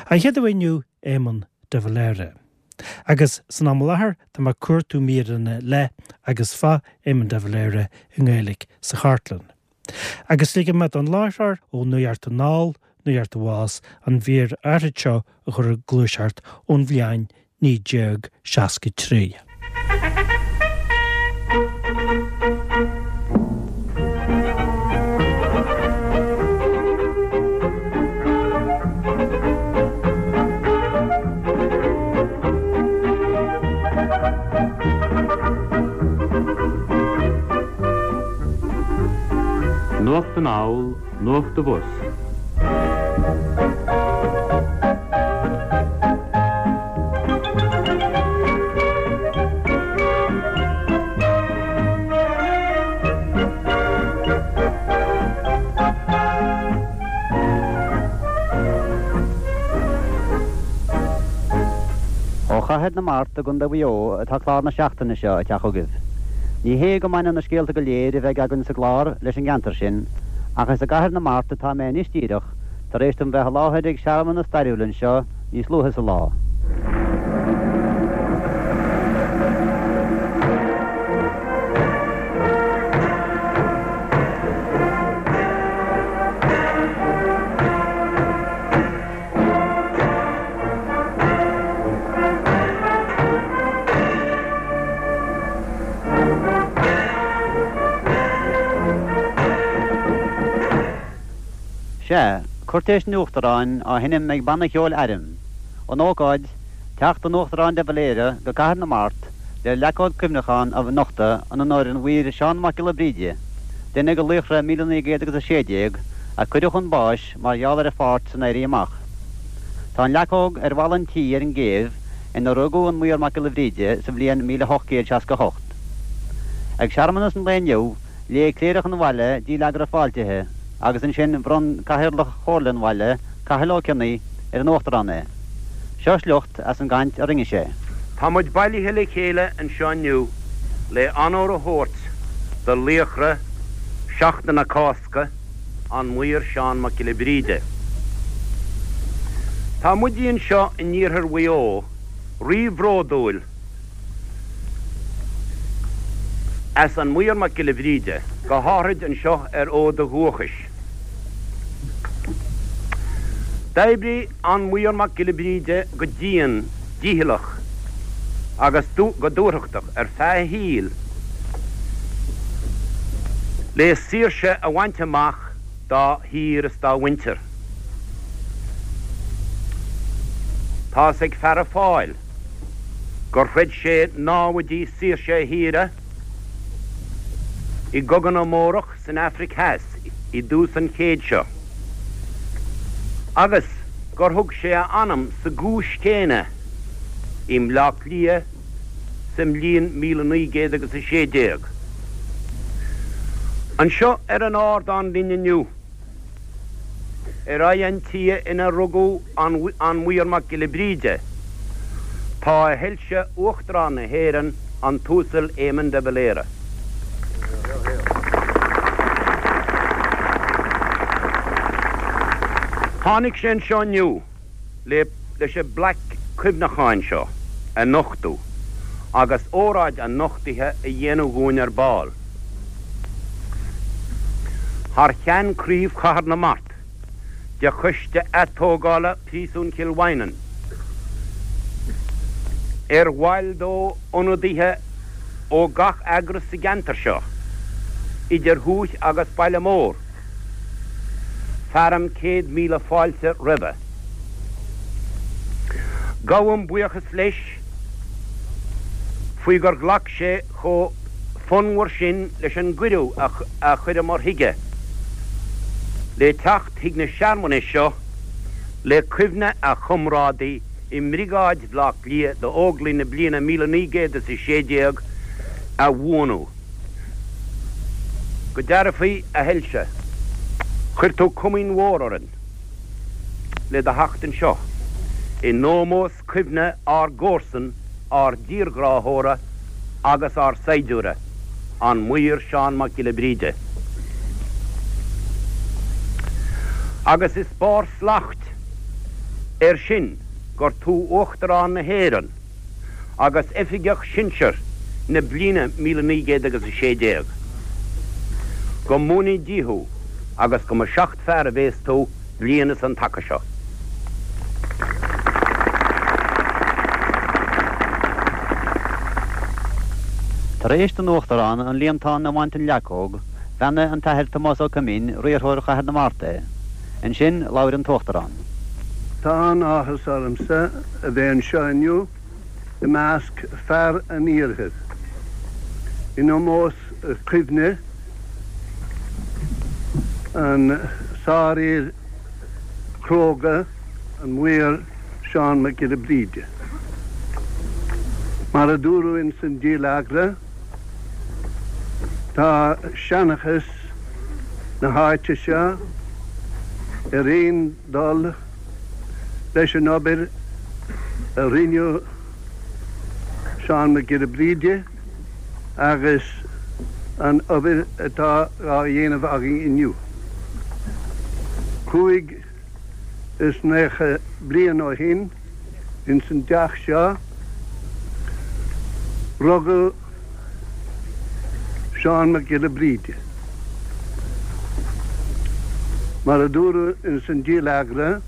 An chéad aoi inniu, Éamon de Valera. Agus san am i láthair tá mé ag cuartú míreanna le agus fá Éamon de Valera i nGaeilge sa chartlann. Agus ligfidh mé don láithreoir ó Nuacht Anall, Nuacht Abhus an mhír áirid seo a chur ag gluaiseacht ón bhliain 1963. Nuacht Anall, Nuacht Abhus. Ó Chathair na Mart i gContae Mhaigh Eo atá clár na seachtaine seo ag teacht chugaibh. Ní hé go mbaineann na scéalta go léir a bheidh againn sa gclár leis an gceantar sin, ach is i gCathair na Mart atá mé anois díreach, tar éis dom bheith i láthair ag searmanas stairiúil anseo níos luaithe sa lá. Sea, Cúirtéis an Uachtaráin á sheinm ag Banna Cheoil Airm. An ócáid, teacht an Uachtaráin de Valera go Cathair na Mart le leacóg cuimhneacháin a nochtadh in onóir an Mhaoir Seán Mac Giolla Bríde, duine de laochra 1916 a cuireadh chun báis mar gheall ar a pháirt san Éirí Amach. Tá an leacóg ar bhalla an tí ar an gCéibh ina rugadh an Maor Mac Giolla Bhríde sa bhliain 1868. Ag searmanas an lae inniu, léigh cléireach an bhaile dílleagra fáiltithe agus ansin bhronn Cathaoirleach Chomhairle an bhaile, Cathal Ó Cionnaith, ar an Uachtarán é. Seo sliocht as an gcaint a rinne sé. Tá muid bailithe le chéile anseo inniu le onóir a thabhairt do laochra Sheachtain na Cásca, an Maor Seán Mac Giolla Bhríde. Tá muide anseo in iarthar Mhaigh Eo rí-bhródúil as an Maor Mac Giolla Bhríde, go háithrid anseo ar fhód a dhúchais. D'oibrigh an Maor Mac Giolla Bhríde go dian dícheallach agus go dúthrachtach ar feadh a shaoil le saoirse a bhaint amach dá thír is dá mhuintir. Tá's ag feara Fáil gur throid sé námhaidí saoirse a thíre i gCogadh na mBórach san Afraic Theas i dtús an chéid seo agus gur thug sé a anam sa gcúis chéanna i mBleá Cliath sa mbliain 1900 agus 16. Anseo ar an ardán linn inniu, ar aghaidh an tí ina rugadh an Maor Mac Giolla Bríde, tá a Shoilse Uachtarán na hÉireann, an tUasal Éamon de Valera. Tháinig sé anseo inniu. le leis an bplaic cuimhneacháin seo a nochtadh agus óráid an nochtaithe a dhéanamh dhúinn ar ball. Thar cheann Craobh Chathair na Mart de Choiste Atógála Phríosún Chill Mhaighneann, ar bhaill dó ionadaithe ó gach eagras sa gceantar seo, idir thuaith agus baile mór, Fearaim 100,000 fáilte roimhe. Gabhaim buíochas leis faoi gur ghlac sé chomh fonnmhar sin leis an gcuireadh a chuireamar chuige le teacht chuig na searmanais seo le cuimhne a chomrádaí i mBriogáid Bhaile Átha Cliath d'Óglaigh na bliana 1916 a bhuanú. Go dearfaí, a Shoilse, chuir tú comaoin mhór orainn le do theacht anseo in ómós cuimhne ár gcomharsan, ár dtírghráthóra agus ár saighdiúra, an Maor Seán Mac Giolla Bríde. Agus is barr slacht. Air sin gur tú Uachtarán na hÉireann agus Oifigeach Sinsir na bliana 1900 agus 16. Go mbuanaí Dia thú agus go mba seachtfhear a bhéas tú bliain is an taca seo. Tar éis don Uachtarán an líontán a bhaint den leacóg, bheannaigh an tAthair Tomás Ó Coimín, riarthóir Chathair na Mart é. Ansin labhair an tUachtarán. Tá an-áthas ormsa a bheith anseo inniu i measc fear an Iarthair, in ómós cuimhne an sárfhir chróga, an Maor Seán Mac Giolla Bríde. Mar a dúradh ins an dílleagra, tá seanchas na háite seo ar aon dul leis an obair a rinne Seán Mac Giolla Bríde agus an obair atá á dhéanamh againn inniu. 95 bliain ó shin, ins an dteach seo, rugadh Seán Mac Giolla Bríde. Mar a dúradh ins an dílleagra,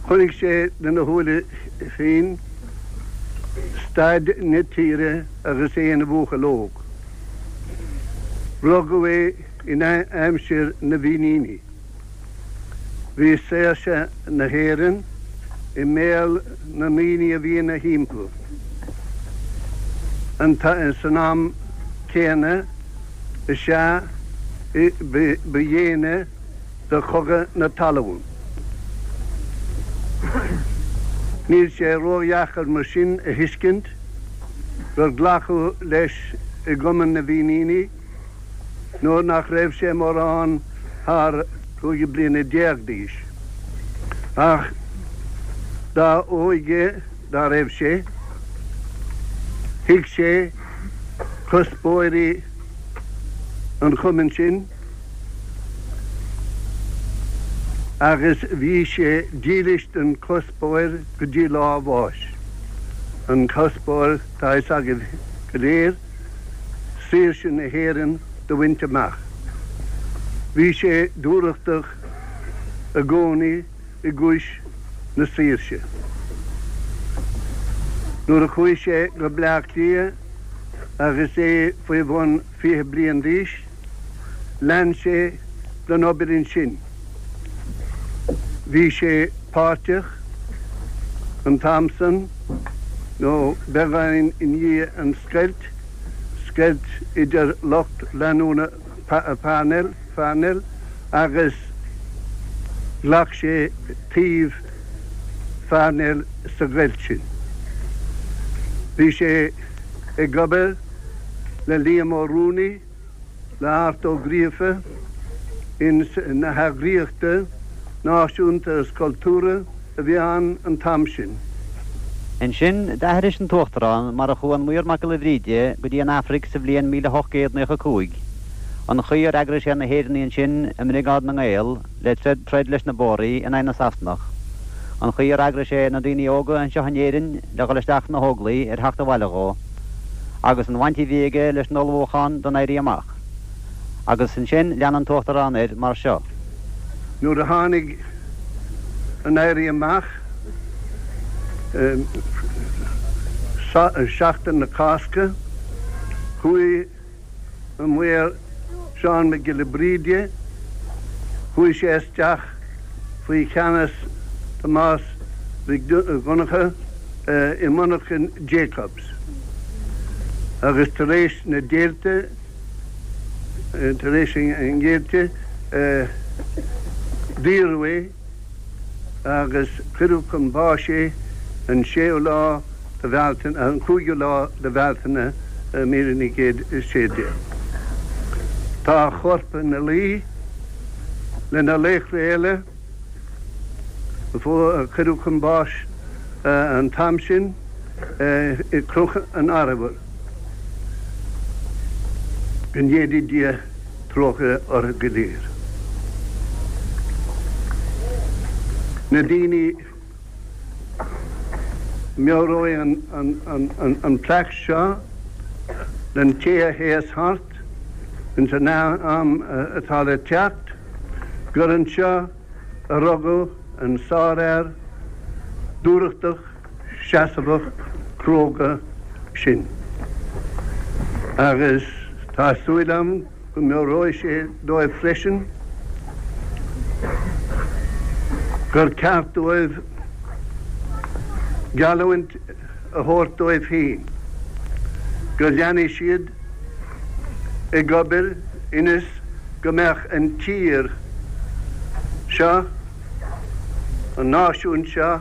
chonaic sé lena shúile féin staid na tíre agus é ina bhuachaill óg. Rugadh é in aimsir na bhFíníní. Bhí saoirse na hÉireann i mbéal na ndaoine a bhí ina thimpeall. San am céanna is ea ba dhéine do Chogadh na Talún. Níl sé ródheacair mar sin a thuiscint gur glacadh leis i gCumann na bhFíníní nuair nach raibh sé mórán thar 15 bliana d'aois. Ach dá óige dá raibh sé, thuig sé cuspóirí an chumainn sin agus bhí sé dílis don chuspóir go dtí lá a bháis. An cuspóir, tá a fhios agaibh go léir, saoirse na hÉireann do bhaint amach. Bhí sé dúthrachtach i gcónaí i gcúis na saoirse. Nuair a chuaigh sé go Bleá Cliath agus é faoi bhun 20 bliain d'aois, lean sé den obair ansin. Bhí sé páirteach an t-am san, nó beagáinín i ndiaidh an scoilt, scoilt idir lucht leanúna Parnell, Pharnell, agus ghlac sé taobh Pharnell sa gcoilt sin. Bhí sé ag obair le Liam Ó Ruanaí, le Art Ó Gríofa ins na heagraíochta náisiúnta is cultúrtha a bhí ann an t-am sin. Ansin d'aithris an tUachtarán mar a chuaigh an Maor Mac Giolla Bhríde go dtí an Afraic sa bhliain 1895, an chaoi ar eagraigh sé na hÉireannaigh ansin i mBriogáid na nGael le troid leis na Bóraigh in aghaidh na Sasanach, an chaoi ar eagraigh sé na daoine óga anseo in Éirinn le dhul isteach sna hÓglaigh ar theacht abhaile dhó, agus an bhaint a bhí aige leis an ullmhúchán don Éirí Amach. Agus ansin lean an tUachtarán air mar seo. Nuair a tháinig an Éirí Amach, Seachtain na Cásca, chuaigh an Maor Seán Mac Giolla Bríde, chuaigh sé isteach faoi cheannas Tomás Mhic Dhonncha i monarchain Jacobs agus tar éis na deighilte, tar éis an deighilte, daoradh é agus cuireadh chun báis é an séú lá de Bhealtaine, an cúigiú lá de Bhealtaine 1916. Tá a chorp ina luí le na laochra eile a cuireadh chun báis an t-am sin i gCnoc an Arbhair. Go ndéanaí Dia trócaire orthu go léir. Na daoine, meabhróidh an plaic seo don té a théas thart ins an am atá le teacht, gur anseo a rugadh an sárfhear dúthrachtach seasamhach cróga sin. Agus tá súil agam go meabhróidh sé dóibh freisin gur ceart dóibh geallúint a thabhairt dóibh féin go leanfaidh siad ag obair ionas go mbeadh an tír seo, an náisiún seo,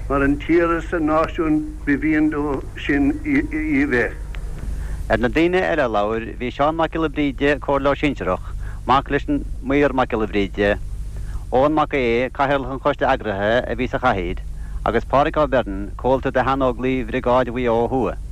mar an tír is an náisiún ba mhian leo sin í a bheith. Ar na daoine eile a labhair bhí Seán Mac Giolla Bríde, Comhairleoir Sinsearach, mac leis an Maor Mac Giolla Bhríde, Eoghan Mac Aodha, Cathaoirleach an Choiste Eagraithe a bhí sa chathaoir, agus Pádhraic Ó Beirn, comhalta de Shean-Óglaigh Bhriogáid Mhaigh Eo Thuaidh.